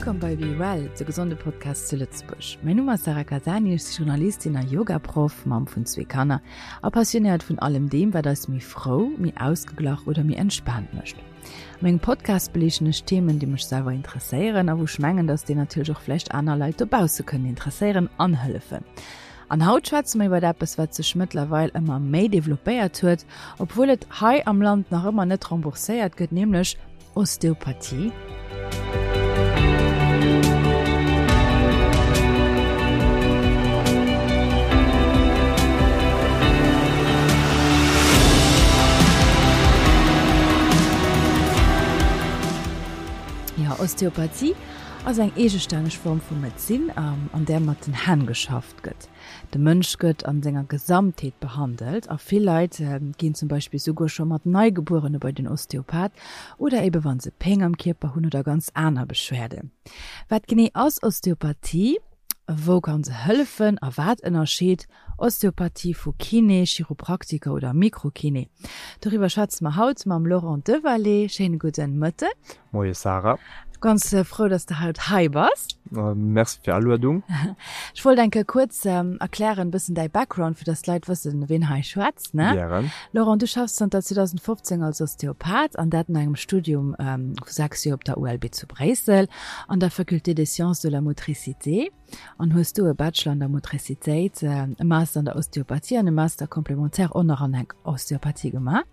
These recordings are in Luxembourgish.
Wëllkomm bei Be Well, de gesonde Podcast zu Lëtzebuerg. Mäin Numm ass Sarah Casani, ech si Journalistin a Yoga-Proff, Mamm vun zwee Kanner a passionéiert vun allem deem, wat eis méi frou, méi ausgeglach oder méi entspaant mécht. A mengem Podcast beliichten ech Themen, déi mech selwer interesséieren a wou ech mengen, dass déi natierlech och vläicht aner Leit dobausse kënnen interesséieren an hëllefen. An haut schwätze mer iwwert eppes, wat sech mëttlerweil ëmmer méi developpéiert huet, obwuel et hei am Land nach ëmmer net rembourséiert gëtt, nämlech Osteopathie. Jo, Osteopathie ass eng eegestänneg Form vu Medezin, an där mat den Hänn geschafft gëtt. De Mënsch gëtt an senger Gesamtheet behandelt a vill Leit ginn zum Beispill souguer scho mat Neigebuerene bei den Osteopath oder ebe wann se Péng am Kierper hunn oder ganz aner Beschwerden. Wat genee ass Osteopathie? Wou kann se hëllefen a wat ënnerscheet Osteopathie vu Kiné, Chiropraktiker oder Mikrokiné? Doriwwer schwätze mer haut mam Laurent Devalet. Schéine gudden Mëtten. Moie Sarah. Ganz frou, dass de haut hei bass. Merci fir Aluedung. Ech wollt eng Kéier kuerz erklären, bëssen däi Background, fir dass d'Leit wëssen, ween hei schwätzt, ne? Gären. Laurent, du schaffs zanter 2015 als Osteopath an dat no engem Studium vu 6 Joer op der ULB zu Bréissel an der Faculté des sciences de la motricité an hues do e Bachelor an der Motricitéit, e Master an der Osteopathie an e Master complémentaire och nach an der Osteopathie gemaach.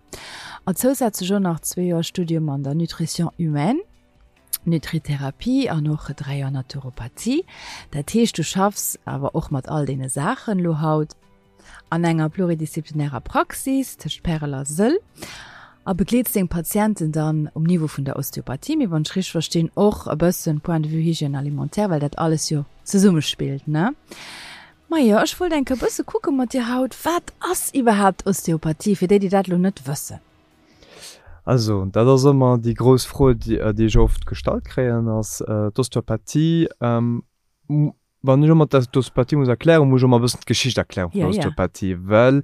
A zousätzlech och nach zwee Joer Studium an der Nutrition humaine, Nutritherapie an och 3 Joer Naturopathie. Dat heescht, du schaffs awer och mat all deene Saachen elo haut an enger pluridisziplinärer Praxis tëscht Pärel a Sëll a begleets deng Patienten dann um Niveau vun der Osteopathie, mee wann ech richteg verstinn och e bëssen point de vue Hygiène alimentaire, well dat alles jo zesummespillt, ne? Majo, ech wollt eng Kéier e bësse kucke mat dir haut, wat ass iwwerhaapt Osteopathie, fir déi, déi dat elo net wëssen? Also, dat ass ëmmer déi grouss Fro, déi ech oft gestallt kréien, ass d'Osteopathie. Wann ech ëmmer d'Osteopathie muss erklären, muss ech ëmmer e bëssen d'Geschicht erklären vun der Osteopathie, well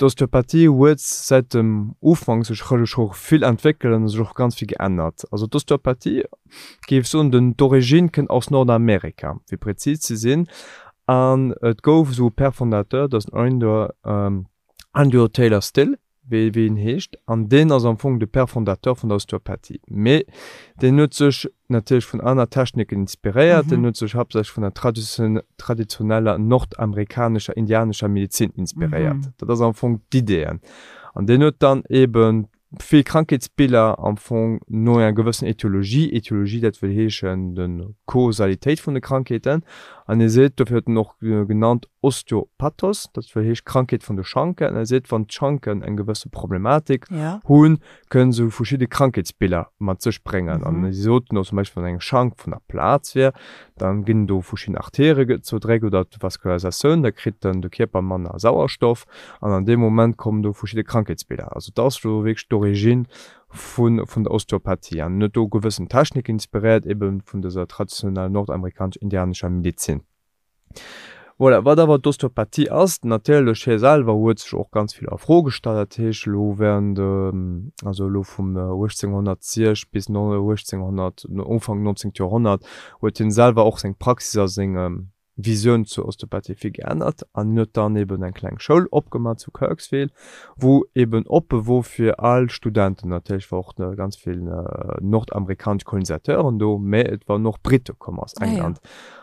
d'Osteopathie huet säit dem Ufank sech scho vill entwéckelt an sech och ganz vill geännert. Also d'Osteopathie géif soen, den d'Origine kënnt aus Nordamerika, fir prezis ze sinn, an et gouf esou e Père fondateur, dat ass den Andrew, Andrew Taylor Still, wéi wéi en heescht, an deen ass am Fong de Père fondateur vun der Osteopathie. Mee deen huet sech natierlech vun aner Techniken inspiréiert, deen huet sech haaptsächlech vun der traditioneller nordamerikanescher indianescher Medezin inspiréiert. Dat ass am Fong d'Idee. An deen huet dann eeben vill Krankheetsbiller am Fong no enger gewëssen Etiologie, Etiologie dat wëll heeschen de Kausalitéit vun de Krankheeten, an hie seet, dofir huet en och genannt Osteopathos, dat wëll heescht Krankheet vun de Schanken, an e seet, wann d'Schanken eng gewësse Problematik hunn, kënnen se verschidde Krankheetsbiller mat sech bréngen. An si soten och zum Beispill, wann eng Schank vun der Plaz wier, Dann ginn do verschidden Arterie zoudréckt oder d'Vascularisatioun, da kritt dann de Kierper manner Sauerstoff an an deem Moment kommen do verschidde Krankheetsbiller. Also dat ass do wierklech d'Origine vun vun der Osteopathie an huet do gewëssen Techniken inspiréiert ebe vun dëser traditioneller nordamerikanesch-indianescher Medezin. Voilà, wat awer d'Osteopathie ass, natierlech hie selwer huet sech och ganz vill a Fro gestallt, dat heescht elo während, also elo vum 1806 bis 1800, Ufank 19. Joerhonnert huet hien selwer och seng Praxis a seng Visioun zur Osteopathie vill geännert an hien huet dann eben eng kleng Schoul opgemaach zu Kirksville, wou eben oppe wor fir al Studenten. Natierlech war och ganz vill nordamerikanesch Kolonisateuren do, mä et waren och Brite komm aus England.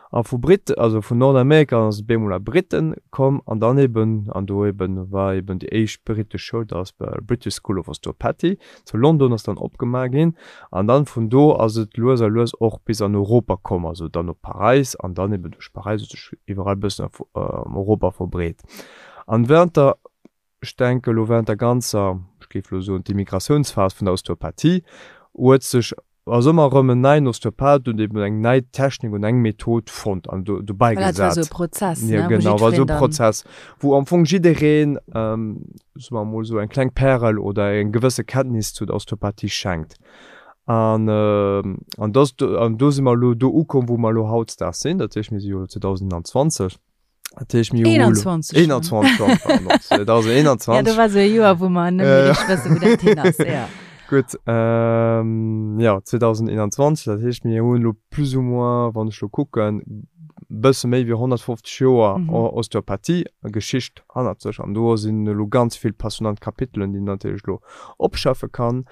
A vu Brit, also vun Nordamerika ass et bemol a Briten komm an dann eben, an do eben war eben déi éischt britesch Schoul, dat ass British School of Osteopathy zu London ass dann opgemaach ginn an dann vun do ass et lues a lues och bis an Europa komm, also dann op Paräis an dann eben duerch Paräis huet sech iwwerall e bëssen an Europa verbreet. An während der, ech denke elo während der ganzer, ech géif elo soen d'Immigratiounsphas vun der Osteopathie huet sech Ass ëmmer erëm en neien Osteopath huet eben eng nei Technik und eng Method fonnt an do dobäi Voilà, et war gesat. esou e Prozess, ne, Ja, wou genau, war esou jiddwereen e dann. Prozess, wou am Fong jiddereen, soe mer emol esou, eng kleng Pärel oder eng gewësse Kenntnis zu der Osteopathie schenkt. An, an dass, an do si mer elo do ukomm, wou mer elo hautdesdaags sinn. Dat heescht, mir si jo elo 2021. Dat heescht, mir hu elo 21 schon. 21 schon, pardon, 2021. Ja, do war esou e Joer, wou mer net méi richteg wëssen, wou dat hin ass, ja. Gutt, jo, 2021, dat heescht, mir hunn elo plus ou moins, wann ech elo kucken, bësse méi wéi 150 Joer Osteopathie, Geschicht hannert sech. An do sinn elo ganz vill passionnant Kapitelen, déi een natierlech elo opschaffe kann.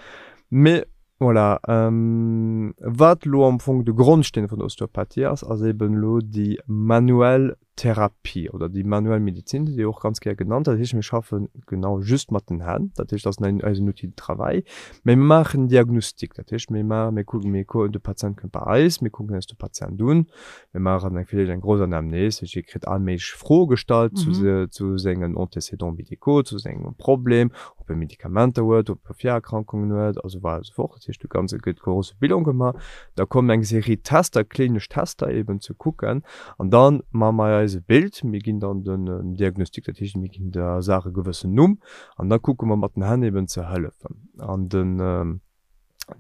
Mee voilà, wat elo am Fong de Grondsteen vun der Osteopathie ass, ass eeben elo déi manuell Therapie oder déi manuell Medizin, déi och ganz gär genannt. Dat heescht, mir schaffen genau just mat den Hänn. Dat heescht, dat ass eisen Outil de travail. Mä mir maachen en Diagnostic. Dat heescht, mir maachen, mir kucken, mir kucken, de Patient kënnt bei eis, mir kucken eis de Patient un, mir maachen eng villäicht eng grouss Anamnese, dat heescht, hie kritt all méiglech Froe gestallt zu zu sengen Antécédents médicaux, zu sengem Problem, ob e Medikamenter huet, ob e Virerkrankungen huet a sou weider a sou fort. Dat heescht, de ganze gëtt grosse Bilan gemaach. Da kommen eng Serie Tester, klinesch Tester eben ze kucken. An da maache mer eis e Bild, mir ginn dann den Diagnostic, dat heescht mir ginn der Saach e gewëssen Numm an da kucke mer mat den Hänn eben ze hëllefen. An den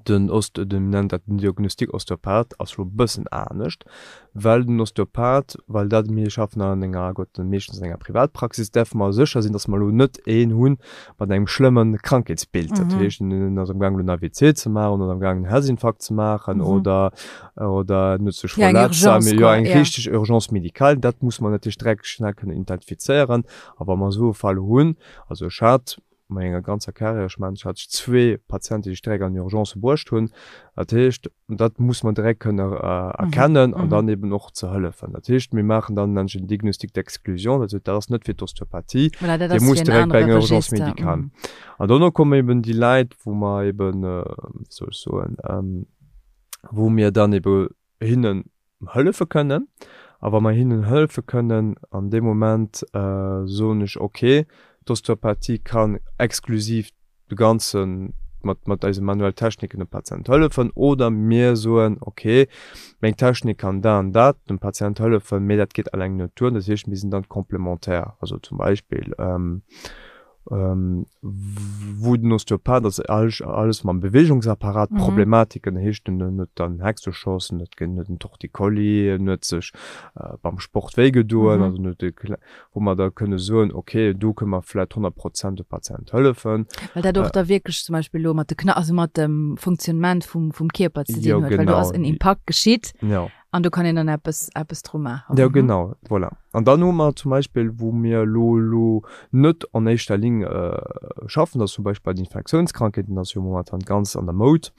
den Ost, den nennt dat den Diagnostic Osteopath ass elo e bëssen anescht, well den Osteopath, well dat mir schaffen an enger, Gott, meeschtens an enger Privatpraxis, däerfe mer sécher sinn, datt mer elo net een hunn mat engem schlëmme Krankheetsbild. Dat heescht, en ass am gaang elo en AVC ze maachen oder am gaang en Herzinfarkt ze maachen oder oder en huet sech Ja, eng verletzt, Urgence, jo, quoi, eng ja. richteg Urgence médicale, dat muss mer natierlech direkt schnell kënnen identifizéieren. A wa mer esou e Fall hunn, also ech hat a menger ganzer Carrière, ech mengen, ech hat zwee Patienten, déi ech direkt an d'Urgence bruecht hunn, dat heescht, dat muss mer direkt kënne erkennen an dann eben och ze hëllefen. Dat heescht, mir maachen dann, nennen ech en Diagnostic d'exclusion, dat heescht, dat ass net fir d'Osteopathie, Voilà, dat dee ass muss fir en direkt bei anere enger Urgence Register. médicale. Mhm. An dono kommen eben déi Leit, wou mer eben, wéi soll ech soen, wou mir dann ebe hinnen hëllefe kënnen. A wa mer hinnen hëllefe kënnen, an deem Moment soen ech, okay, d'Osteopathie kann exklusiv de ganze mat, mat eise manuell Techniken dem Patient hëllefen, oder mir soen, okay, meng Technik kann dat an dat dem Patient hëllefen, mee dat geet alleng net duer. Dat heescht, mir sinn dann complémentaire. Also zum Beispill, wou den Osteopath ass alles mam Beweegungsapparat Problematiken heescht en huet dann Hexenschoss, en huet en Torticolli, en huet sech beim Sport wéi gedoen, also en huet e wou mer da kënne soen, okay do kënne mer vläit 100 Prozent dem Patient hëllefen. Well dat och da wierklech zum Beispill elo mat de Kna-, also mat dem Funktionnement vum Kierper ze dinn huet, well do ass en Impakt geschitt. An do kann een dann eppes, eppes dru maachen. Jo, genau, voilà. An dann hu mer zum Beispill, wou mir elo elo net an éischter Linn schaffen, dat ass zum Beispill bei den Infektiounskrankheeten, dat ass jo momentan ganz an der Moud.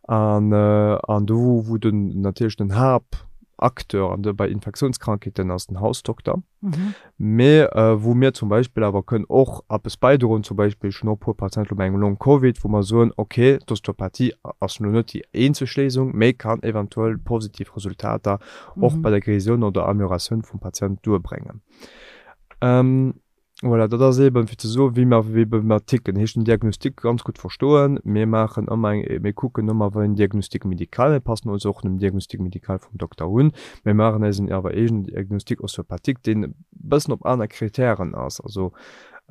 An, an do, wou den natierlech den Haapacteur an de bei Infektiounskrankheeten ass den Hausdokter. Mee wou mir zum Beispill awer kënnen och eppes bäidroen, zum Beispill, ech hunn och e puer Patienten elo mat engem Long Covid, wou mer soen, okay, d'Osteopathie ass elo net déi eenzeg Léisung, mee kann eventuell positiv Resultater och bei der Guérisioun oder Amélioratioun vum Patient duerbréngen. Voilà, dat ass eeben, fir ze soen, wéi mer, wéi mer ticken. Heescht den Diagnostic ganz gutt verstoen. Mir maachen ëmmer eng, mir kucken ëmmer, wéi en Diagnostic médical, mir passen ons och dem Diagnostic médical vum Dokter un. Mir maachen eisen awer eegenen Diagnostic ostéopathique, deen e bëssen op aner Kritären ass. Also,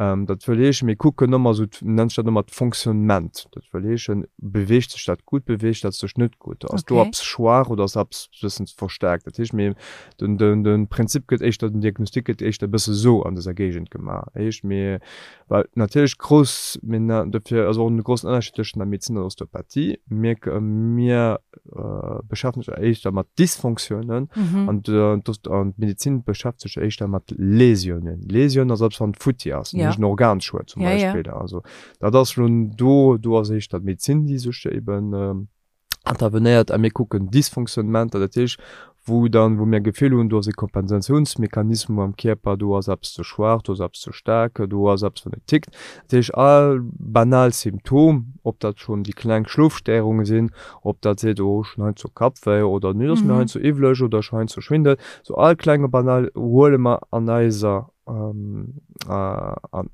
dat wëll heeschen, mir kucken ëmmer esou, nennt sech dat ëmmer d'Fonctionnement. Dat wëll heeschen, beweegt sech dat gutt, beweegt dat sech net gutt? Ass do eppes schwaach oder ass eppes e bëssen verstaarkt? Dat heescht, mir Den, den, den Prinzip gëtt éischter, den Diagnostic gëtt éischter e bësse sou an dëser Géigend gemaach. Heescht mir, well natierlech grouss, mir na, dofir ass och en groussen Ënnerscheed tëschent der Medezin an der Osteopathie. Mir, mir beschäftegen sech éischter mat Dysfonctiounen an d'Ost, an d'Medezin beschäftegt sech éischter mat Lésiounen. Lésioun ass eppes wann et futti ass, ja, en Organschued zum Beispill. Also dat ass lo do, do ass éischter d'Medezin déi sech eben intervenéiert a mir kucken Dysfonctionnementer, dat heescht wou dann, wou mir Gefill hunn, do ass e Kompensatiounsmechanismus am Kierper, do ass eppes ze schwaach, do ass eppes ze staark, do ass eppes wat net tickt. Dat heescht all banal Symptom, ob dat schonn déi kleng Schlofstéierunge sinn, ob dat seet, oh ech hunn heiansdo Kappwéi oder nee et ass mir heiansdo iwwlech oder ech hu heiansdo Schwindel, sou all klenge banal huele mer an eiser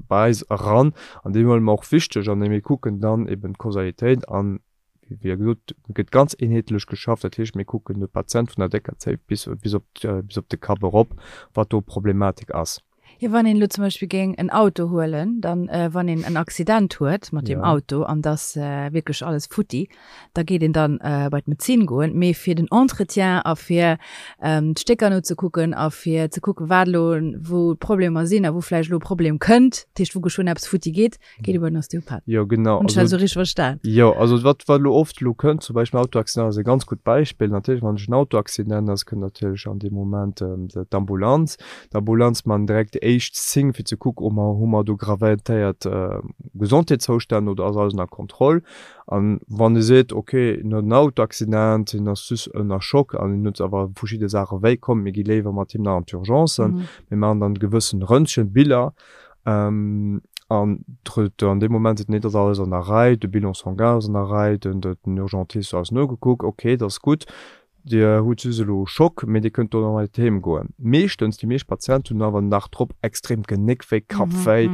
bei eis eran an déi huele mer och wichteg an mir kucken dann eben d'Kausalitéit an Wéi gesot, gëtt ganz eenheetlech geschafft. Dat heescht, mir kucken de Patient vun der décker Zéif bis, bis op, bis op de Kapp erop, wat do Problematik ass. Jo, wann een elo zum Beispill géing en Auto huelen, dann, wann een en Accident huet mat deem Auto an et ass wierklech alles futti, da geet een dann bei d'Medezin goen. Mee fir den Entretien a fir d'Stécker nozekucken a fir ze kucken, wat elo wou d'Problemer sinn a wou vläicht elo e Problem kënnt, dat heescht wou geschwënn eppes futti geet, Geet iwwer den Osteopath. Jo, genau. Hunn ech dat esou richteg verstan? Jo, also wat, wat elo oft elo kënnt, zum Beispill Autoaccident ass e ganz gutt Beispill. Natierlech, wann ech en Autoaccident ass, kënnt natierlech an deem Moment d'Ambulanz. D'Ambulanz man direkt déi éischt Signe fir ze kucken, oh mer, hu mer do gravéiert Gesondheetszoustänn oder ass alles ënner Kontroll. An wann e seet, ok, en huet en Autoaccident, hien ass just ënner Schock an hien huet awer verschidde Saache wéi, komm mir gi léiwer mat him nach an d'Urgencen, mir maachen dann gewëssen Röntgenbiller, An an deem Moment seet, nee, dat ass alles an der Rei, de Bilan sanguin ass an der Rei, den Urgentist huet alles nogekuckt, okay, dat ass gutt, Dir hutt just elo e Schock, mee Dir kënnt dono mat heem goen. Meeschtens, déi meescht Patienten hunn awer den Dag drop extrem Genéckwéi, Kappwéi,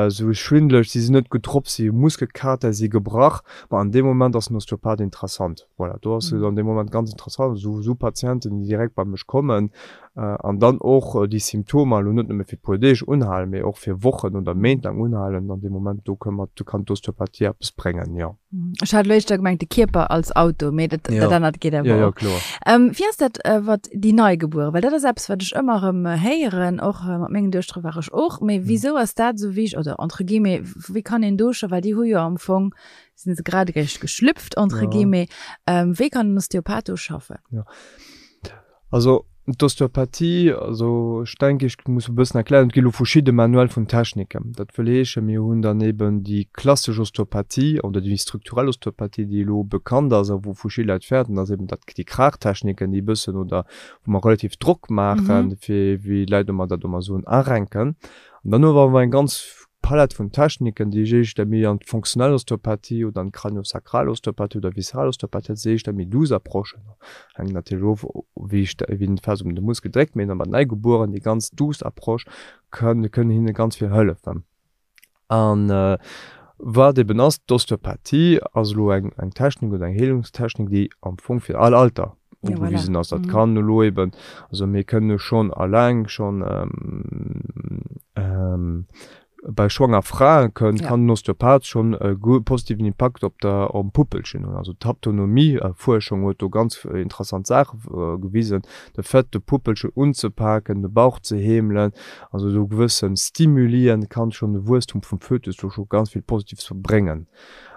esou schwindeleg, si sinn net gutt drop, si hu Muskelkater, si gebrach. Ma an deem Moment ass den Osteopath interessant. Voilà, do ass et an deem Moment ganz interessant, esou Patienten, déi direkt bei mech kommen, An dann och déi Symptomer elo net nëmme fir e puer Deeg unhalen, mee och fir Wochen oder Méint laang unhalen. An deem Moment do kënn mer, do kann d'Osteopathie eppes bréngen, jo. Ech hat elo éischter gemengt de Kierper als Auto, mee dat, dat anert geet awer och. Jo, jo, kloer. Wéi ass dat wat déi Neigebueren? Well dat ass eppes, wat ech ëmmer erëm héieren, och mat mengen Duechtere war ech och. Mee wisou ass dat esou wichteg, oder entre guillemets, wéi kann een do scho, well déi hu jo am Fong, sinn se grad eréischt geschlüpft, entre guillemets, wéi kann den Osteopath do schaffen? Jo. Also d'Osteopathie, also ech denke ech muss e bëssen erklären, et gi lo verschidde Manuelle vun Techniken. Dat wëll heeschen, mir hunn dann eben déi klassesch Osteopathie oder déi strukturell Osteopathie, déi elo bekannt ass a wou verschidde Leit fäerten, ass eben dat déi Kraachtechniken, déi e bëssen oder wou mer relativ Drock maachen, fir wéi d'Leit ëmmer dat ëmmer soen, arenken. An dann hu mer awer eng ganz Palett vun Techniken, déi ech éischter méi an d'fonctionnell Osteopathie oder an d'craniosacral Osteopathie oder visceral Osteopathie, dat si éischter méi douce Approchen. Hänkt natierlech of, wéi wéi den fest op de Muskel dréckt, mee bei Neigebueren, déi ganz douce Approche kënn kënnen hinne ganz vill hëllefen. An wat eben ass, d'Osteopathie ass elo eng eng Technik oder eng Heelungstechnik, déi am Fong fir all Alter ugewisen ass. Dat kann elo eben, also mir kënnen schonn alleng schonn bei schwanger Frae kënn, kann den Osteopath schonn e positiven Impakt op der op Puppelchen hunn. Also d'Haptonomie-Fuerschung huet do ganz interessant Saache gewisen. De Fait de Puppelchen unzepaken, de Bauch ze heemelen, also esou gewësse Stimulien kann schonn de Wuesstum vum Fötus do scho ganz vill Positives bréngen.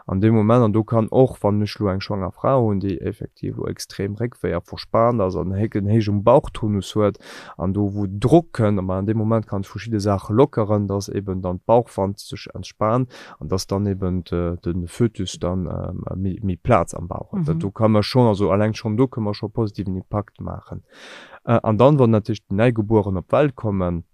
An deem Moment, an do kann och, wann ech elo eng schwanger Fra hunn, déi effektiv elo extrem Réckwéi a verspaant ass an en héijen Bauchtonus huet an do wou Drock kënnt, ma an deem Moment kann ech verschidde Saache lockeren, dass eben dann d'Bauchwand sech entspaant an dass dann eben de Fötus dann méi Plaz am Bauch huet. Dat do ka mer schonn, also alleng schonn do kënne mer scho positiven Impakt maachen. An dann, wann natierlech déi Neigebueren op d'Welt kommen,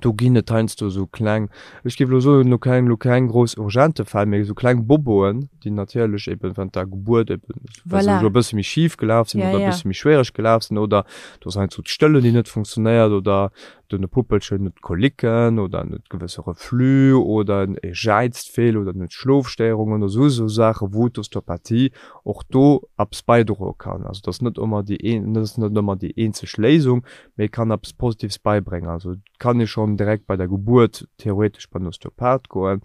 Do ginn et heiansdo esou kleng, ech géif elo soen, elo keng, elo keng grouss urgente Fäll, mee esou kleng Boboen, déi natierlech eben während der Gebuert eben, well se elo e bësse méi schif gelaf sinn oder e bësse méi schwiereg gelaf sinn oder do ass heiansdo d'Stëllen, déi net funktionéiert oder den Puppelchen huet Kolicken oder en huet gewësse Reflux oder en e jäizt vill oder en huet Schlofstéierungen oder esou esou Saachen, wou d'Osteopathie och do eppes bäidroe kann. Also et ass net ëmmer déi een, et ass net ëmmer déi eenzeg Léisung, mee kann eppes Positives beibréngen. Also et kann ee schonn direkt bei der Gebuert theoretesch bei den Osteopath goen.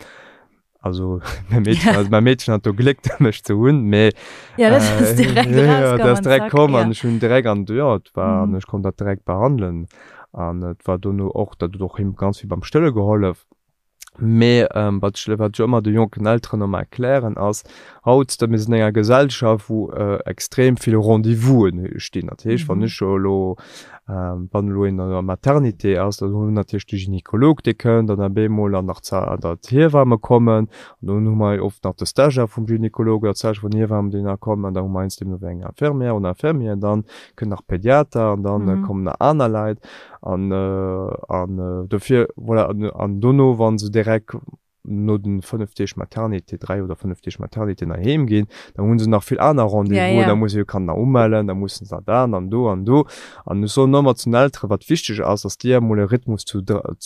Also mäi Meedchen, also mäi Meedchen hat do Gléck mech ze hunn, mee Ja, dat ass direkt ja, rauskomm dat ass an direkt zack, komm ja. an ech hunn direkt an jo, et war an Mhm. ech konnt dat direkt behandelen an et war dono och, dat huet och him ganz vill beim Stëlle gehollef. Mee wat ech wat ech ëmmer de jonken Elteren ëmmer erklären ass, haut, mir sinn an enger Gesellschaft wou extrem vill Rendez-vousen stinn. Dat heescht, wann ech elo wann elo een an der Maternité ass, dann hu mir natierlech de Gynekolog dee kënnt an op eemol dann nach d'Hiewamme kommen an dann hu mer oft nach de Stagiaire vum Gynekolog oder d'Stagiaire vun der Hiewamm déi nach kommen an da hu mer heiansdo nach eng Infirmière oder Infirmier, dann kënnt nach Pediater an dann kommen nach aner Leit. An, an dofir, voilà, an, an dono, wa se direkt. No den 5 Deeg Maternité, 3 oder 5 Deeg Maternité nach heem ginn, dann hunn se nach vill aner Rendez-vous, da muss se jo Kanner nach umellen, da mussen se da an do an do. An ech soen ëmmer zu den Elteren, wat wichteg ass, dass déi emol e Rhythmus zu,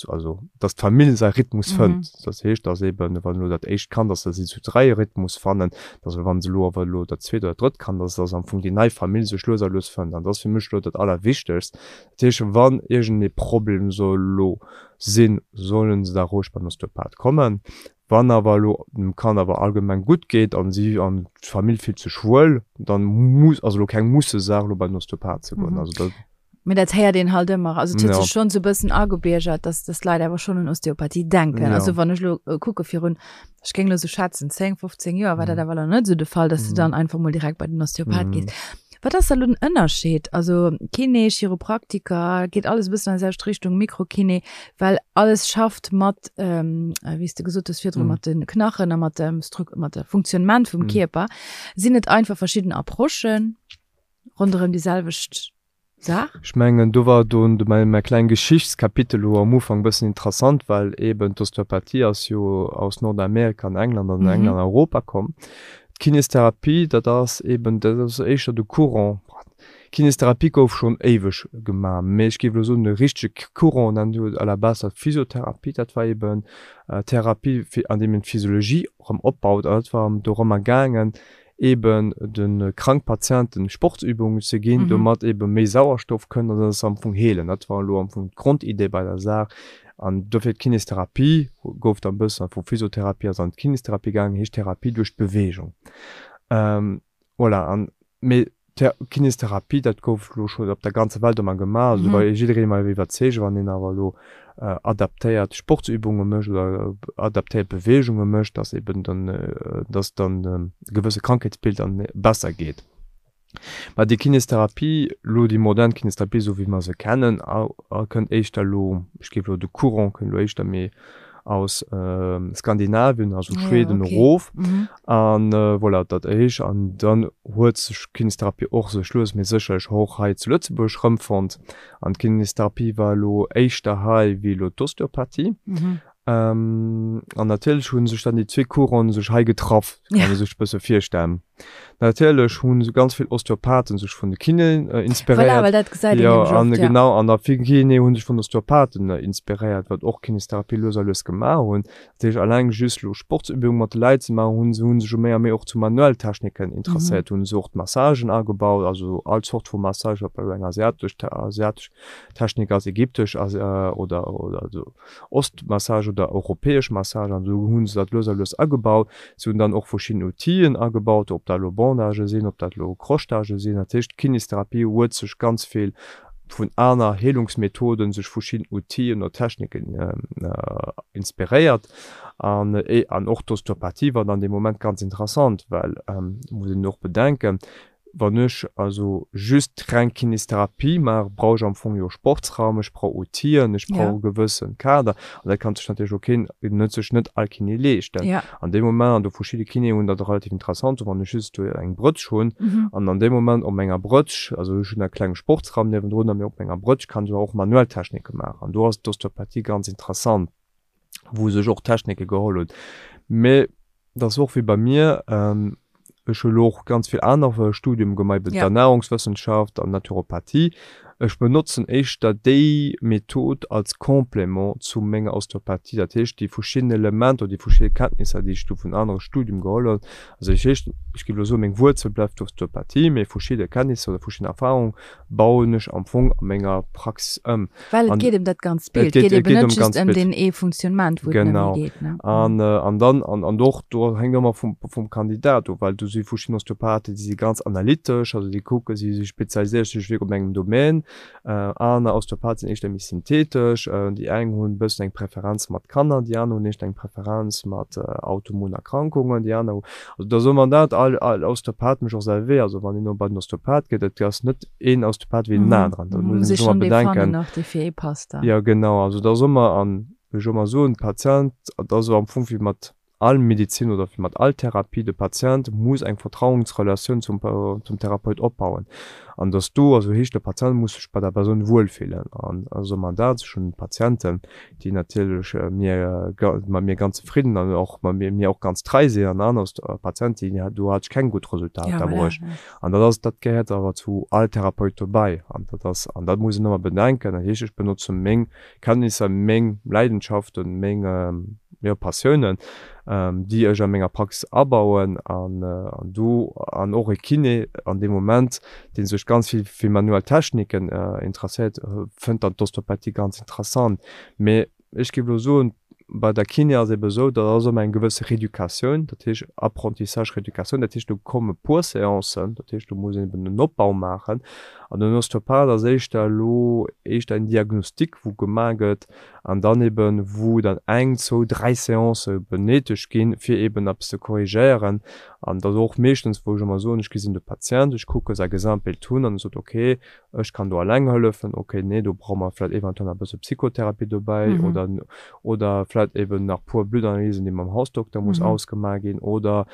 also dass d'Famill säi Rhythmus fënnt. Dat heescht, dass eben, wann elo dat éischt Kand ass, dass si zu 3 e Rhythmus fannen, dass wann se elo awer elo dat zweet oder drëtt Kand ass, dass am Fong déi nei Famill sech lues a lues fënnt. An dat ass fir mech elo dat Allerwichtegst. Dat heescht, wann iergendee Problem soll elo sinn, sollen se da roueg beim Osteopath kommen. Wann awer elo dem Kand awer allgemeng gutt geet an si an d'Famill fillt sech wuel, dann muss, ass elo keng Mussesaach elo bei den Osteopath ze goen. Also dat. Mee dat héiert een halt ëmmer. Also et huet sech schonn esou e bëssen agebiergert, dass dass d'Leit awer schonn un Osteopathie denken. Also wann ech elo kucke virun, ech géing elo esou schätzen, 10, 15 Joer war dat awer nach net esou de Fall, dass de dann einfach mol direkt bei den Osteopath gees. Wat ass da lo den Ënnerscheed? Also Kiné, Chiropraktiker, geet alles e bëssen an déi selwecht Richtung, Mikrokiné, well alles schafft mat, wéi s de gesot hues virdru, mat de Knachen a mat dem Struc-, mat de Funktionnement vum Kierper. Sinn et einfach verschidden Approchen ronderëm déi selwecht Saach? Ech mengen, do war do mäi, mäi kleng Geschichtskapitel elo am Ufank e bëssen interessant, well eeben d'Osteopathie ass jo aus Nordamerika an England an England an Europa komm. D'Kinestherapie, dat ass eben, dat ass éischter de Courant, Kinestherapie gouf schonn éiweg gemaach, mee ech géif elo soen, de richtege Courant nennt een à la base dat Physiotherapie, dat war eben Therapie fir an deem een d'Physiologie erëm opbaut an dat war dorëmmer gaangen, eben de krank Patienten Sportsübungen ze ginn, domat eben méi Sauerstoff kënnt an dass se am Fong heelen. Dat war elo am Fong d'Grondidee bei der Saach. An dofir d'Kinestherapie gouf dann e bëssen vu Physiotherapie ass an d'Kinestherapie gaangen, heescht Therapie duerch d'Beweegung. Voilà, an mee Kinestherapie, dat gouf elo schonn op der ganzer Welt ëmmer gemaach, also do war jiddereen ëmmer iwwerzeegt, wann een awer elo adaptéiert Sportsübunge mécht oder adaptéiert Beweegunge mécht, dass eben dann, dass dann e gewësse Krankheetsbild dann besser geet. Mä déi Kinestherapie, elo déi modern Kinestherapie, esou wéi mer se kennen, kënnt éischter elo, ech géif elo de Courant kënnt elo éischter méi aus Skandinavien, also Schweden erof. An voilà, dat éischt. An dann huet sech d'Kinestherapie och sech lues mee sécherlech och hei zu Lëtzebuerg erëmfonnt. An d'Kinestherapie war elo éischter hei wéi elo d'Osteopathie. An natierlech hu sech dann déi zwee Couranten sech hei getraff, kann ee sech e bësse virstellen. Natierlech hu ganz vill Osteopathen sech vun de Kinéen inspiréiert. Voilà, well dat gesäit een nämlech oft, jo. Genau, an da vill Kinéen hu sech vun Osteopathen inspiréiert, wat och Kinestherapie lues a lues gemaach hunn. Dat heescht, alleng just elo Sportsübunge mat de Leit ze maachen, hu se hu sech jo méi a méi och zu manuell Techniken interesséiert, hu se och d'Massagen agebaut, also all Zort vu Massage, ob dat elo eng asiatesch asiatesch Technik ass, ägyptesch oder oder esou. Ostmassage oder europäesch Massage an esou hu se dat lues a lues agebaut. Se hunn dann och verschidden Outile agebaut, ob dat elo Bandagë sinn, ob dat elo Crochetagë sinn. Dat heescht, d'Kinestherapie huet sech ganz vill vun aner Heelungsmethoden, sech verschidden Outilen oder Techniken inspiréiert. An an och d'Osteopathie war dann dee Moment ganz interessant, well, muss een och bedenken, Wann ech also just reng Kinestherapie maache, brauch ech am Fong jo e Sportsraum, ech brauch Outilen, ech brauch e gewëssen Kader. An dat kann sech natierlech och keen, net sech net all Kiné leeschten. An deem Moment, an do verschidde Kinéen hunn dat relativ interessant, wann ech just do eng Brëtsch hunn an an deem Moment op menger Brëtsch, also ech hunn e klenge Sportsraum niewendrun, a mee op menger Brëtsch kann ech awer och manuell Technike maachen. An do ass d'Osteopathie ganz interessant, wou sech och Technike geholl hunn. Mee Dat ass och wéi bei mir, ech hu lo och ganz vill aner Studium gemaach, eben d'Ernährungswëssenschaft an Naturopathie. Ech benotzen éischter déi Method als Complément zu menger Osteopathie, dat heescht déi verschidden Elementer oder déi verschidde Kenntnisser, déi ech do vun anere Studium geholl hunn. Also dat heescht, ech géif elo soen, meng Wuerzel bleift d'Osteopathie, mee verschidde Kenntnisser oder verschidden Erfahrungen bauen ech am Fong a menger Praxis ëm. Well et geet ëm dat ganzt Bild, et geet eben net just ëm deen ee Funktionnement, wou et nëmme geet. Genau. An, an dann, an, an och do hänkt ëmmer vum, vum Kandidat of, well do si verschidden Osteopathen, déi si ganz analytesch, also déi kucke, si si spezialiséiere sech wierklech op engem Domaine. Aner Osteopathen sinn éischter méi synthetesch, déi eng hunn e bëssen eng Preferenz mat Kanner, déi aner hunn éischter eng Preferenz mat autoimmun Erkrankungen, déi aner hu, also da soe mer dat, all, all Osteopath mécht och säi Wee, also wann een elo bei den Osteopath geet, et ass net een Osteopath wéi den aneren, dat muss een sech ëmmer bedenken. Jo genau, also da soe mer, an wéi ech ëmmer soen, Patient, dat ass am Fong wéi mat. all Medizin oder wéi mat all Therapie, de Patient muss eng Vertrauensrelatioun zum zum Therapeut opbauen. An dass do, also heescht de Patient muss sech bei der Persoun wuelfillen. An also man dat, ech hunn Patienten, déi natierlech mir mat mir ganz zefridden an och mat mir mir och ganz trei sinn an aner Patienten, déi do hat ech keng gutt Resultater bruecht. An dat ass, dat gehéiert awer zu all Therapeut dobäi. An dat ass, an dat muss een ëmmer bedenken. Dat heescht, ech benotze meng Kenntnisser, meng Leidenschaften, meng, jo, Passiounen, déi ech a menger Praxis abauen. An do, an och e Kiné an deem Moment, dee sech ganz vill fir manuell Techniken interesséiert, fënnt dann d'Osteopathie ganz interessant. Mee ech géif elo soen, bei der Kiné ass ebe esou, dat ass ëmmer eng gewësse Reeducatioun, dat heescht Apprentissage, Reeducatioun, dat heescht do komme puer Seancen, dat heescht do muss een eben en Opbau maachen. An den Osteopath ass éischter elo éischter en Diagnostic wou gemaach gëtt an dann eben wou dann eng, zwou, dräi Seancë benéidegt ginn, fir eben eppes ze korrigéieren. An dat ass och meeschtens wou ech ëmmer soen, ech gesinn de Patient, ech kucke säi Gesamtbild hunn an e sot okay, ech kann do alleng hëllefen, ok, nee, do brauche mer vläicht eventuell nach e bësse Psychotherapie dobäi oder, oder vläicht eben nach puer Bluttanalysen, déi mam Hausdokter muss ausgemaach ginn oder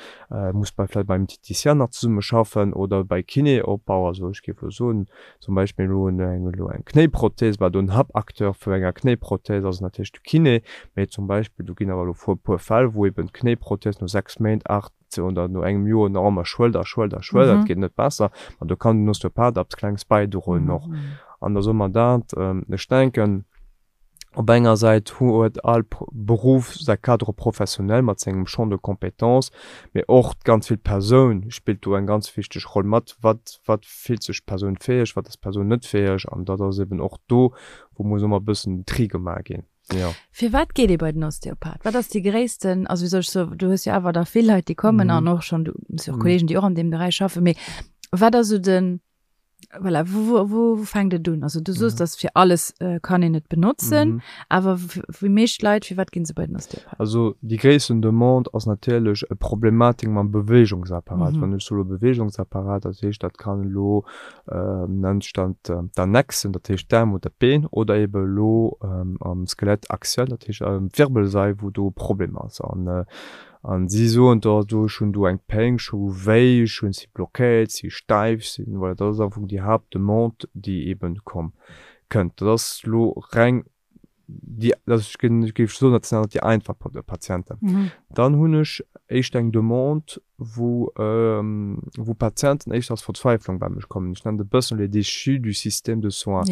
muss bei vläicht beim Diététicien nach zesumme schaffen oder bei Kiné Opbau. Also ech géif elo soen, zum Beispill elo eng, elo eng Knéiprothèse, bah do en Haapacteur vu enger Knéiprothèse ass natierlech de Kiné, mee zum Beispill do ginn awer elo e puer Fäll, wou eben d'Knéiprothèse no 6 Méint, 8, oder no engem Joer nach ëmmer schwëllt a schwëllt a schwëllt, dat geet net besser, ma do kann den Osteopath eppes Klengs bäidroen och. An da soe mer dat, ech denken, op enger Säit huet all Beruff säi Cadre professionnel mat sengem Champ de compétences, mee och ganz vill d'Persoun spillt do eng ganz wichteg Roll mat, wat wat fillt sech d'Persoun fäeg, wat ass d'Persoun net fäeg, an dat ass eben och do, wou muss ëmmer e bëssen den Tri gemaach ginn. Jo. Firwat geet ee bei den Osteopath? Wat ass déi gréissten, also wéi soll ech soen, du hues jo awer da vill Leit, déi kommen an och schonn, du hues jo och Kollegen, déi och an deem Beräich schaffen, mee wat ass esou den, voilà, wou, wou, wou, wou fänkt et un? Also du soos, dass fir alles kann een et benotzen, awer déi meescht Leit, firwat ginn se bei den Osteopath? Also déi gréissten Demande ass natierlech e Problematik mam Beweegungsapparat. Wann ech soe Beweegungsapparat, dat heescht, dat kann elo nennt sech dann d'Annexen, dat heescht d'Aarm oder d'Been, oder ebe elo am Skelett axial, dat heescht d'Wirbelsail, wou do e Problem ass. An an si soen da do, ech hunn do eng Péng, ech hu wéi, ech hunn si blockéiert, si steif, si, voilà, dat ass am Fong déi Haaptdemande, déi eben komm kënnt. Dat ass elo reng déi, also ech ginn, ech géif soen, dat sinn awer déi einfach Patienten. Dann hunn ech éischt eng Demande, wou, wou Patienten éischter aus Verzweiflung bei mech kommen. Ech nennen dat e bëssen les déchus du système de soins.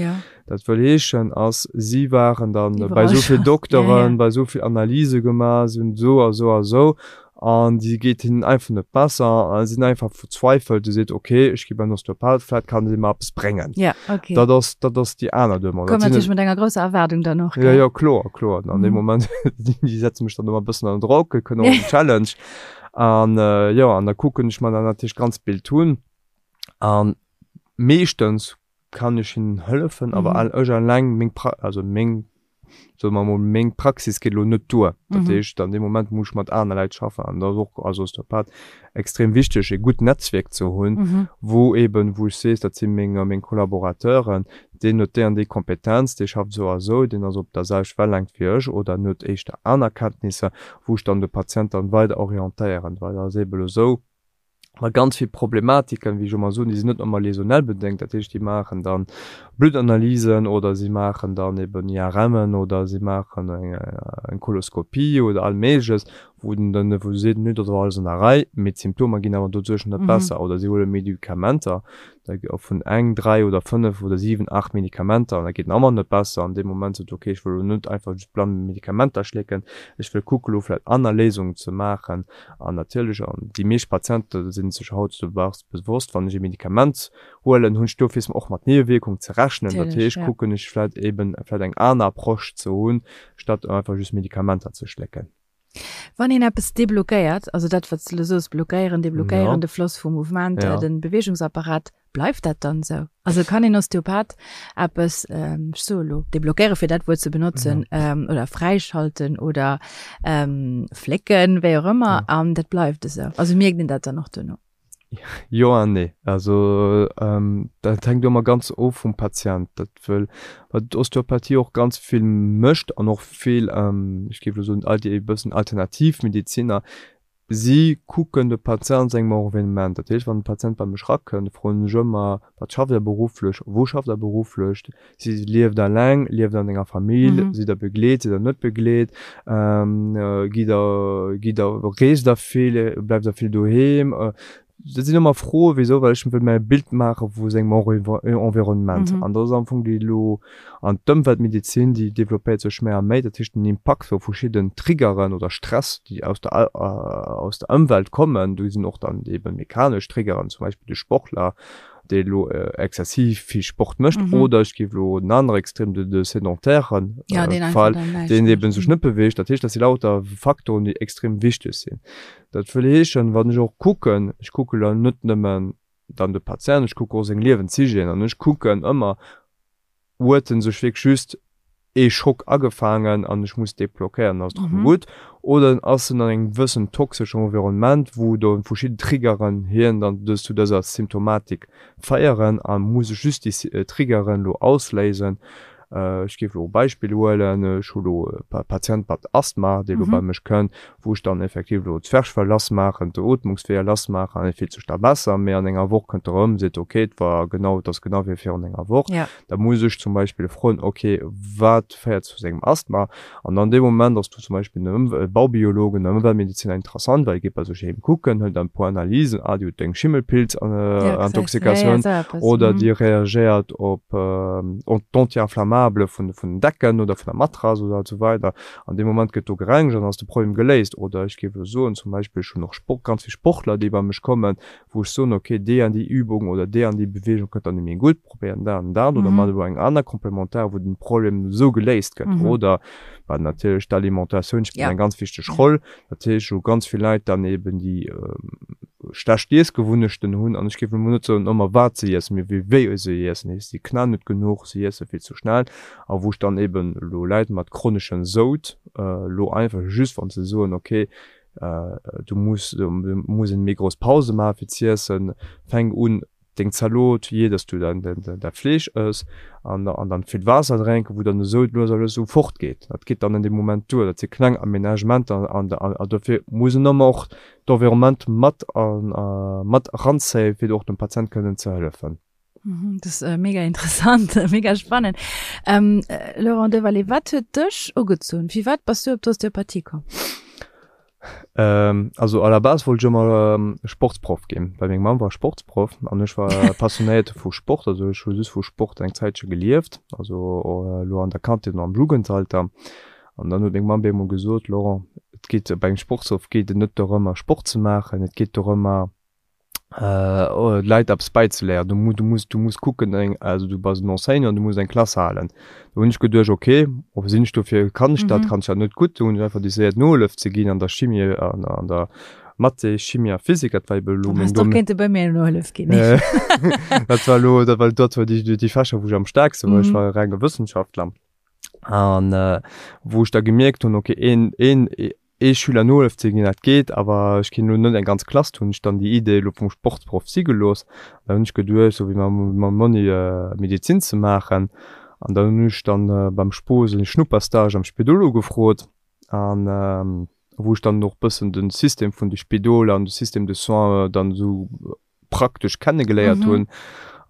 Dat wëll heeschen, ass, si waren dann bei esou vill Dokteren, bei esou vill Analyse gemaach, si hunn esou a sou a sou An déi geet hinnen einfach net besser a sinn einfach verzweifelt. Déi seet, ok, ech gi beim Osteopath, vläit kann dee mer eppes bréngen. Ja, ok. Dat ass, dat ass déi aner Demande. Koum natierlech mat enger grousser Erwaardung dann och, gell? Jo, jo, kloer, kloer. An deem Moment, déi setze mech dann ëmmer e bëssen ënner Drock, kënnt och en Challenge. An jo, an da kucken ech mer dann natierlech d'ganz Bild un. An meeschtens kann ech hinnen hëllefen, awer ech alleng, meng Pra-, also meng soe mer emol, meng Praxis geet elo net duer. Dat heescht, an deem Moment muss ech mat aner Leit schaffen an dat ass och als Osteopath extrem wichteg, e gutt Netzwierk ze hunn, wou eeben, wou ech sees, dat si meng, meng Collaborateuren, deen huet déi an déi Kompetenz, dee schafft esou a esou, deen ass op der selwecht Wellängt wéi ech oder en huet éischter aner Kenntnisser, wou ech dann de Patient dann weider orientéieren, well dat ass eeben elo esou, Ma ganz vill Problematiken, wéi ech ëmmer soen, déi sinn net ëmmer läsonell bedéngt. Dat heescht, déi maachen dann Bluttanalysen oder si maachen dann eben IRMen oder si maachen eng Koloskopie oder all Méigleches, wou den dann, wou se seet, nö, dat ass alles an der Rei, mee d'Symptomer ginn awer doduerch net besser. Oder si huele Medikamenter, da vun eng, 3 oder 5 oder 7, 8 Medikamenter an da geet en ëmmer net besser. An deem Moment sot, okay, ech wëll elo net einfach just blann Medikamenter schlécken, ech wëll kucke lo vläicht aner Léisungen ze maachen. An natierlech, an déi meescht Patiente si sech hautdesdaags bewosst, wann ech e Medikament huelen, hunn ech dofir och mat Niewewierkung ze rechnen. Dat heescht, kucken ech vläicht eben vläicht eng aner Approche ze hunn, statt einfach just Medikamenter ze schlécken. Wann een eppes deblockéiert, also dat wat s de elo soos, blockéieren, deblockéieren, de Floss vum Mouvement, de Beweegungsapparat, Bleift dat dann esou? Also kann een Osteopath eppes, ech soe elo deblockéieren, fir dat Wuert ze benotzen, oder fräischalten oder flécken, wéi och ëmmer, an dat bleift esou? Also mierkt een dat dann och duerno? Jo an nee. Also dat hänkt ëmmer ganz of vum Patient. Dat wëll, wat d'Osteopathie och ganz vill mécht an och vill, ech géif elo soen, all déi e bëssen alternativ Medeziner, si kucken de Patient an sengem Environnement. Dat heescht, wann e Patient bei mech erakënnt, froen ech ëmmer, Wat schafft Der berufflech? Wou schafft Der berufflech? Si lieft eleng, lieft an enger Famill, sidd der begleet, sidd der net begleet, gitt der, gitt der, reest der vill, bleift der vill doheem? Dat sinn ëmmer Froen, wisou, well ech wëll mir e Bild maache vu sengem Environnement. An dat ass am Fong déi elo, an d'Ëmweltmedezin, déi developpéiert sech méi a méi, dat heescht den Impakt vu verschidden Triggeren oder Stress, déi aus der, aus der Ëmwelt kommen, do sinn och dann ebe mechanesch Triggeren, zum Beispill de Sportler, dee elo exzessiv vill Sport mécht, oder ech géif elo en anere Extrem, de de sédentairen Fall, deen eebe sech net beweegt. Dat heescht, dat si lauter Faktoren, déi extrem wichteg sinn. Dat wëll heeschen, wann ech och kucken, ech kucke lo net nëmmen dann de Patient, ech kucke och seng Liewenshygiène an ech kucken ëmmer, huet en sech wierklech just ee Schock agefaangen an ech muss dee blockéieren, dann ass et erëm gutt, oder ass en an engem gewëssen toxeschen Environnement, wou do verschidden Triggeren hien dann dës zu dëser Symptomatik féieren a muss ech just déi Triggeren elo ausléisen. Ech géif elo e Beispill huelen, ech hu elo e Patient mat Asthma, dee elo bei mech kënnt, wou ech dann effektiv elo d'Zwerchfell lass maachen, d'Ootmungsweeër lass maachen an e fillt sech da besser, mee an enger Woch kënnt e erëm, seet ok, et war genau, et ass genau wéi virun enger Woch. Da muss ech zum Beispill froen, ok, wat féiert zu sengem Asthma? An an deem Moment ass du zum Beispill den Baubiolog, den Ëmweltmediziner interessant, well e geet bei sech heem kucken, hëlt dann e puer Analysen, ah, déi huet eng Schimmelpilz-Intoxikatioun oder déi reagéiert op d'Anti-inflammabele vun den Decken oder vun der Matrass oder esou weider. An deem Moment gëtt do gerengegt an ass de Problem geléist. Oder ech géif elo soen, zum Beispill, ech hunn och Sport, ganz vill Sportler, déi bei mech kommen, wou ech soen, okay, déi an déi Übung oder déi an déi Beweegung kënnt dann net méi gutt, probéieren dat an dat oder mat elo eng aner Complémentaire, wou den Problem esou geléist gëtt. Oder wat natierlech d'Alimentatioun spillt eng ganz wichteg Roll. Dat heescht, wou ganz vill Leit dann eben déi schlecht Iessgewunnechten hunn, an ech géif elo mol net soen ëmmer wat se iessen, mee wéi wéi se iessen, heescht si knaen net genuch, si iesse vill ze schnell, a wou ech dann eben elo Leit mat chroneschem Soud elo einfach just wann se soen, okay, du muss du muss eng méi grouss Pause maache fir z'iessen, fänk un deng Zalot, jee dass du dann dat Fleesch ëss an an dann vill Waasser drénken, wou dann de Soud lues a lues esou fort geet. Dat geet dann an deem Moment duer. Dat si kleng Aménagementer an an dofir muss en ëmmer och d'Environnement mat mat eranzéien, fir och dem Patient kënnen ze hëllefen. Mhm, das ist äh, mega interessant, mega spannend. Ähm, äh, Laurent Devalet, wat huet dech ugezunn? Fir wat bass du op d'Osteopathie komm? Ähm, also à la base wollt ech ëmmer ähm, Sportsproff ginn, well meng Mamm war Sportsproff an ech war passionéiert vu Sport, also ech hu just vu Sport eng Zäitche gelieft, also äh, lo an der Kandheet an am Jugendalter. An dann huet meng Mamm bemol gesot, Laurent, et geet bei engem Sportsproff geet et net dorëmmer Sport ze maachen, et geet dorëmmer Leit eppes bäizeléieren. Du mu du muss du muss kucken eng also du bass en Enseignant, du muss eng Klass halen. Do hunn ech geduecht, okay, sinn ech dofir, kann ech dat, kann ech dat net gutt. Do hunn ech einfach decidéiert Nohëllef ze ginn an der Chimie an an der Mathé, Chimie a Physik. Dat war ebe elo meng Dann häss de och kéinte bei mir Nohëllef ginn. Dat war elo dat war dat war déi déi Fächer wou ech am staarkste war. Ech war e renge Wëssenschaftler an wou ech da gemierkt hunn, okay een een ee Schüler Nohëllef ze ginn, dat geet, awer ech kinn elo net eng ganz Klass, hunn ech dann déi Idee elo vum Sportsproff si gelooss. An da hunn ech geduecht, sou wéi mam mam Monni Medezin ze maachen. An dann hunn ech dann beim Spoo sou e Schnupperstage am Spidol ugefrot an wou ech dann och bëssen de System vun de Spidoler an de Système de soins dann esou praktesch kennegeléiert hunn.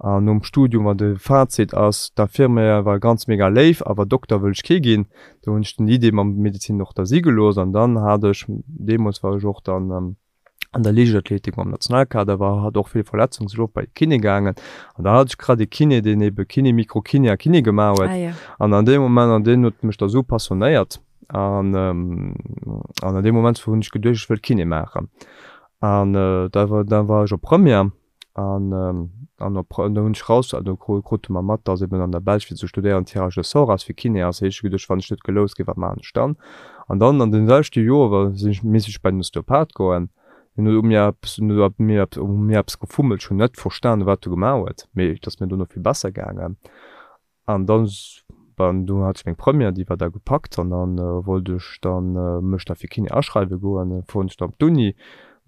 An nom Studium war de Fazit ass, d'Infirmière war ganz mega léif, awer Dokter wëll ech kee ginn. Do hunn ech den Idee mam Medezin och da si gelooss. An dann hat ech, deemools war ech och dann an der Liichtathletik mam Nationalkader, war hat och vill Verletzungen, sinn och bei de Kiné gaangen. An da hat ech grad ee Kiné, deen ebe Kiné, Mikrokiné a Kiné gemaach huet. An an deem Moment, an deen huet mech da sou passionéiert. An an an deem Moment hunn ech geduecht, ech wëll Kiné maachen. An da war da war ech op Première an an op do hunn ech raus do krute mer mat, datt eben an der Belsch fir ze studéieren Tirage au sort ass fir Kiné ass. Hu ech geduecht, wann ech net geloust ginn, wat maachen ech dann? An dann an deem selwechte Joer war sinn ech misst ech bei den Osteopath goen. Hien huet u mir eppes hien huet u mir eppes u mir eppes gefummelt, ech hunn net verstanen, wat e gemaach huet, mee et ass mir dono vill besser gaangen. An dann, bon, do hat ech meng Première, déi war da gepackt an dann wollt ech dann mech da fir Kiné aschreiwe goen. Dann fueren ech da op d'Uni.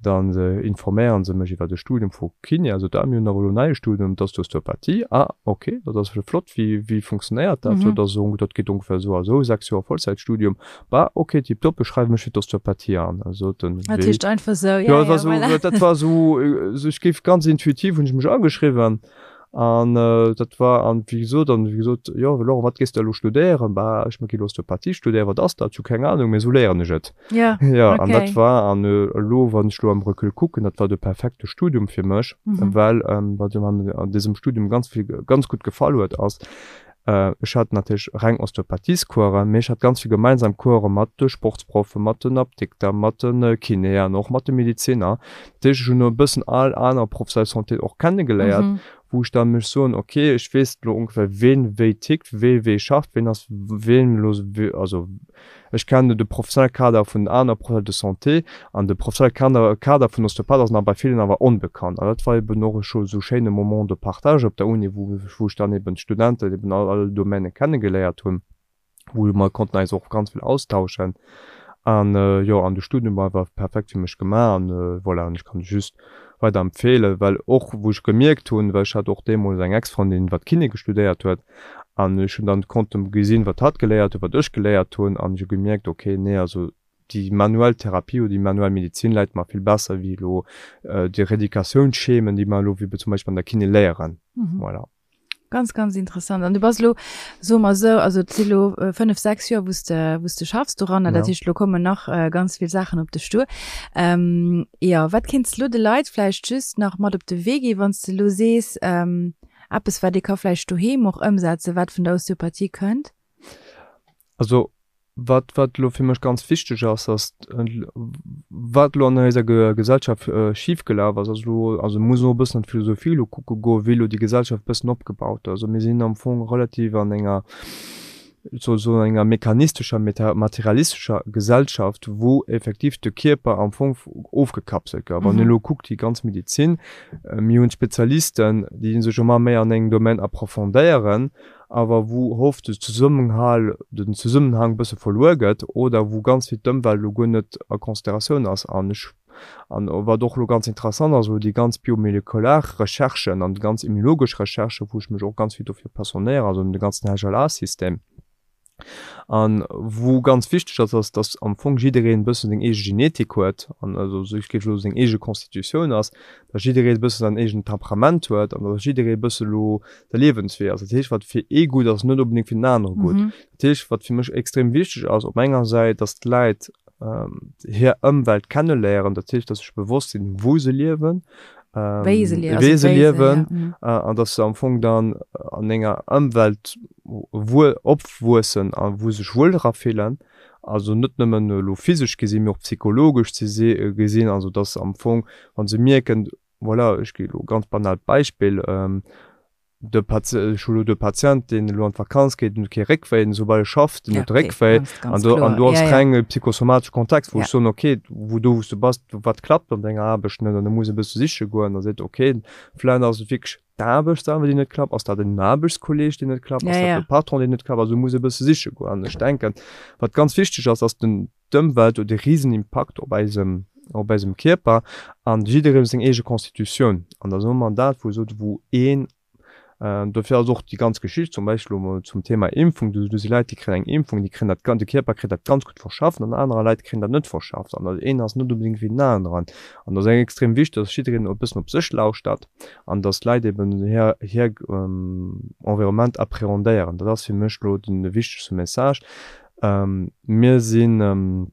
Dann informéieren se mech iwwer de Studium vu Kiné, also da, mir hunn awer elo en neie Studium, dat ass d'Osteopathie. Ah, ok, dat ass jo flott, wéi, wéi funktionéiert dat? Jo, dat ass esou, dat geet ongeféier esou a esou, 6 Joer Vollzäitstudium. Bah, ok, tiptop, ech schreiwe mech fir d'Osteopathie an. Also den Dat heescht einfach esou, ja, ja, voilà. Dat war esou, ech géif ganz intuitiv hunn ech mech ageschriwwen. An dat war, an wéi gesot, an wéi gesot, jo Laurent, wat gees de elo studéieren? Bah, ech gi elo Osteopathie studéieren. Wat ass dat? Ech hu keng Anung, mee esou léieren ech et. Ja, Jo, an dat okay. war, an elo, wann ech elo am Recul kucken, dat war de perfekte Studium fir mech, well wat mir an dësem Studium ganz vill, ganz gutt gefall huet, ass, Ech hat natierlech reng Osteopathiescoursen, mee ech hat ganz vill gemeinsam Course mat de Sportsproffen, mat den Apdikter, mat de Kinéen, och mat de Mediziner. Dat heescht, ech hunn e bëssen all aner Professional de santé och kennegeléiert, wou ech da mech soen, ok, ech weess elo ongeféier, ween wéi tickt, wee wéi schafft, ween ass ween elo, also Ech kennen de professionelle Kader vun den aner Professionels de santé an de professionelle Kader vun Osteopath ass nach bei villen awer onbekannt. An dat war eben och scho esou schéine Moment de partage op der Uni, wou wou ech dann eben d'Studenten eben all all Domaine kennegeléiert hunn, wou mer konnten eis och ganz vill austauschen. An jo, an de Studium war einfach perfekt fir mech gemaach an voilà, an ech kann just weider empfeelen, well och wou ech gemierkt hunn, well ech hat och deemools eng Ex-Frëndin, wat Kiné gestudéiert huet, An ech hunn dann konnte gesinn, wat hatt geléiert huet, wat ech geléiert hunn, an ech hu gemierkt, okay, nee, also déi manuell Therapie oder déi manuell Medizin läit mer vill besser wéi elo déi Rééducatiounsschemen, déi mer elo wéi zum Beispill an der Kiné léieren. Voilà. Ganz, ganz interessant. An du bass elo, soe mer esou, also et si elo 5, 6 Joer, wou s de, wou s de schaffs doranner. Dat heescht, elo kommen nach ganz vill Saachen op dech duer. Jo, wat kéints de elo de Leit vläicht just nach mat op de Wee ginn, wann s de elo sees, Eppes wat ee ka vläicht doheem och ëmsetzen, wat vun der Osteopathie kënnt? Also wat wat elo fir mech ganz wichteg ass, ass wat elo an eiser Gesellschaft schif gelaf ass, ass elo, also muss och e bëssen an d'Philosophie elo kucke goen, wéi elo déi Gesellschaft e bëssen opgebaut ass. Also mir sinn am Fong relativ an enger, soen, enger mechanistescher, materialistescher Gesellschaft, wou effektiv de Kierper am Fong ofgekapselt gouf. Wann een elo kuckt, déi ganz Medizin, mir hunn Spezialisten, déi sech ëmmer méi an engem Domaine approfondéieren, awer wou oft de Zesummenhal, den Zesummenhang e bësse verluer gëtt oder wou ganz vill d'Ëmwelt elo guer net a Consideratioun ass. An ech An wat och elo ganz interessant ass, elo déi ganz biomolekular Recherchen an déi ganz immunologesch Recherchen, wou ech mech och ganz vill dofir passionéieren, also ëm de ganzen HLA-System, a wou ganz wichteg ass, ass, dass am Fong jiddereen e bëssen seng eege Genetik huet an also ech géif elo seng eege Constitutioun ass, dass jidderee e bësse säin eegent Temperament huet an dass jidderee e bësse elo de Liewenswee ass. Dat heescht, wat fir ee gutt ass, ass net onbedéngt fir den anere gutt. Dat heescht, wat fir mech extrem wichteg ass op enger Säit, dass d'Leit hir Ëmwelt kenneléieren, dat heescht, dass se sech bewosst sinn, wou se liewen, wéi se wéi se liewen, an dass se am Fong dann an enger Ëmwelt wuel opwuessen a wou se sech wuel dra fillen, also net nëmmen elo physesch gesinn, mee och psychologesch ze gesinn, also dass se am Fong, wa se mierken, voilà, ech gi elo e ganz banaalt Beispill, De Patient, ech hu lo de Patient, deen elo an d'Vakanz geet, den huet kee Réckwéi, den soubal e schafft, den huet de Réckwéi. An do, an do ass reng e psychosomatesche Kontext, wou ech soen, okay, wou do wou s du bass, wat klappt an denger Aarbecht net? An da muss e bësse siche goen a seet, okay, vläicht ass et wierklech d'Aarbecht selwer, déi net klappt, ass dat en Aarbechtskolleeg, deen net klappt, ass dat de Patron, deen net klappt? Also muss e bësse siche goen. An ech denken, wat ganz wichteg ass, ass den, d'Ëmwelt huet e risen Impakt op eisem, op eisem Kierper an jidderee huet seng eege Constitutioun. An da soe mer dat, wou esou, wou een, dofir ass och déi ganz Geschicht zum Beispill elo mol zum Thema Impfung, do si Leit, déi kréien eng Impfung, déi kréien dat, de Kierper kritt dat ganz gutt verschafft an anerer Leit kréien dat net verschafft. An dat een ass net onbedéngt wéi den aneren. An dat ass extrem wichteg, dass jiddereen e bëssen op sech lauschtert an dass d'Leit eben hir, hir Environnement appréhendéieren. Dat ass fir mech elo de wichtegste Message. Mir sinn,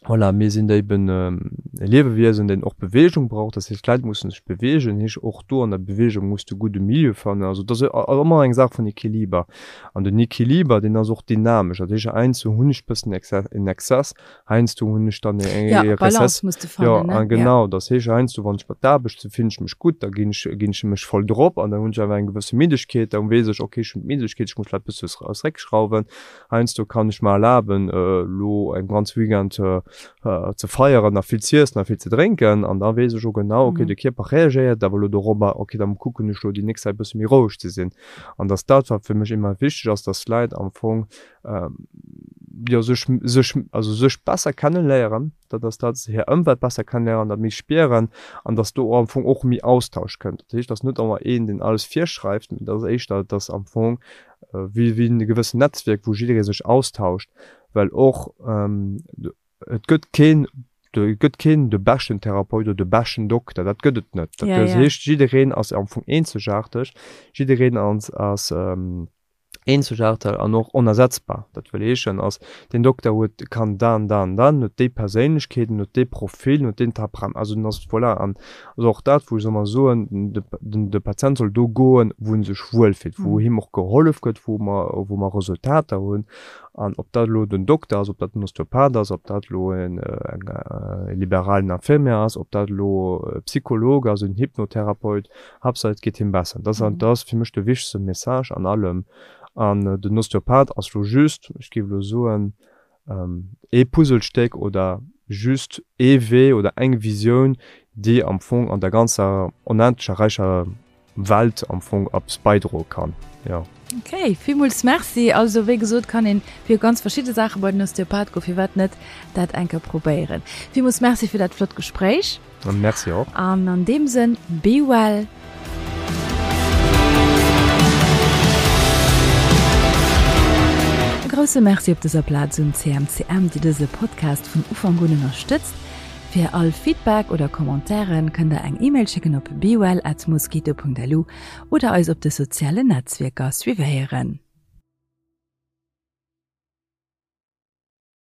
voilà, mir sinn eben e Liewewiesen, deen och Beweegung brauch. Dat heescht, d'Leit mussen sech beweegen. Heesch och do an der Beweegung muss de gudde Milieu fannen. Also et ass ëmmer eng Saach vun Equiliber. An den Equiliber, deen ass och dynamesch. Dat heescht, heiansdo hunn ech e bëssen en Exzess, heiansdo hunn ech dann e Rezess. Jo, a genau. Dat heescht, heiansdo, wann ech bei d'Aarbecht sinn, fillen ech mech gutt, da ginn ech, ginn ech mech voll drop an da hunn ech awer eng gewësse Middegkeet. Da weess ech, okay, ech hunn d'Middegkeet, ech muss vläicht e bësse zeréckschrauwen. Heiansdo kann ech mer erlaben elo en ganz Weekend ze feieren a vill z'iessen a vill ze drénken an da weess ech och genau, okay de Kierper reagéiert awer elo dorobber, okay da kucken ech elo déi nächst Zäit e bësse méi roueg ze sinn. An dass dat wat fir mech immens wichteg ass, dass d'Leit am Fong. jo, sech, sech, also sech besser kenneléieren, dat ass dat, hir Ëmwelt besser kenneléieren, dat méi spieren an dass do am Fong och méi Austausch kënnt. Dat heescht, dass net ëmmer een, deen alles virschreift, mee dat ass éischter, dass am Fong wéi, wéi e gewëssen Netzwierk, wou jidderee sech austauscht, well och et gëtt keen, et gëtt keen de beschten Therapeut oder de beschten Dokter, dat gëtt et net. Dat heescht, jiddereen ass am Fong eenzegaarteg, jiddereen ass, ass eenzegaarteg an och onersetzbar. Dat wëll heeschen, ass deen Dokter huet, kann dan, dan, dan, huet déi Perséinlechkeet, en huet dee Profil, en huet deen Temperament, also en ass, voilà. An also och dat, wou ech ëmmer soen, de, den, de Patient soll do goen, wou en sech wuelfillt, wou him och gehollef gëtt, wou mer, wou mer Resultater hunn. An ob dat elo den Dokter ass, ob dat den Osteopath ass, ob dat elo en, eng, e liberalen Infirmier ass, ob dat elo e Psycholog ass, en Hypnotherapeut, Haaptsaach et geet him besser. Dat ass, dat ass fir mech de wichtegste Message an allem. An den Osteopath ass lo just, ech géif elo soen, ee Puzzlestéck oder just ee Wee oder eng Visioun, déi am Fong an der ganzer onendlecher räicher Welt am Fong eppes beidroe kann, jo. Ok, villmools Merci. Also wéi gesot kann een fir ganz verschidde Saache bei den Osteopath goen, firwat net dat eng Kéier probéieren. Villmools Merci fir dat flott Gespréich. Merci och. An an deem Sënn, be well. E grousse Merci op dëser Plaz un CMCM, déi dëse Podcast vun Ufank un ënnerstëtzt. Fir all Feedback oder Commentairen kënnt der eng E-Mail schécken op bewell at mosquito.lu oder eis op de sozialen Netzwierker suivéieren.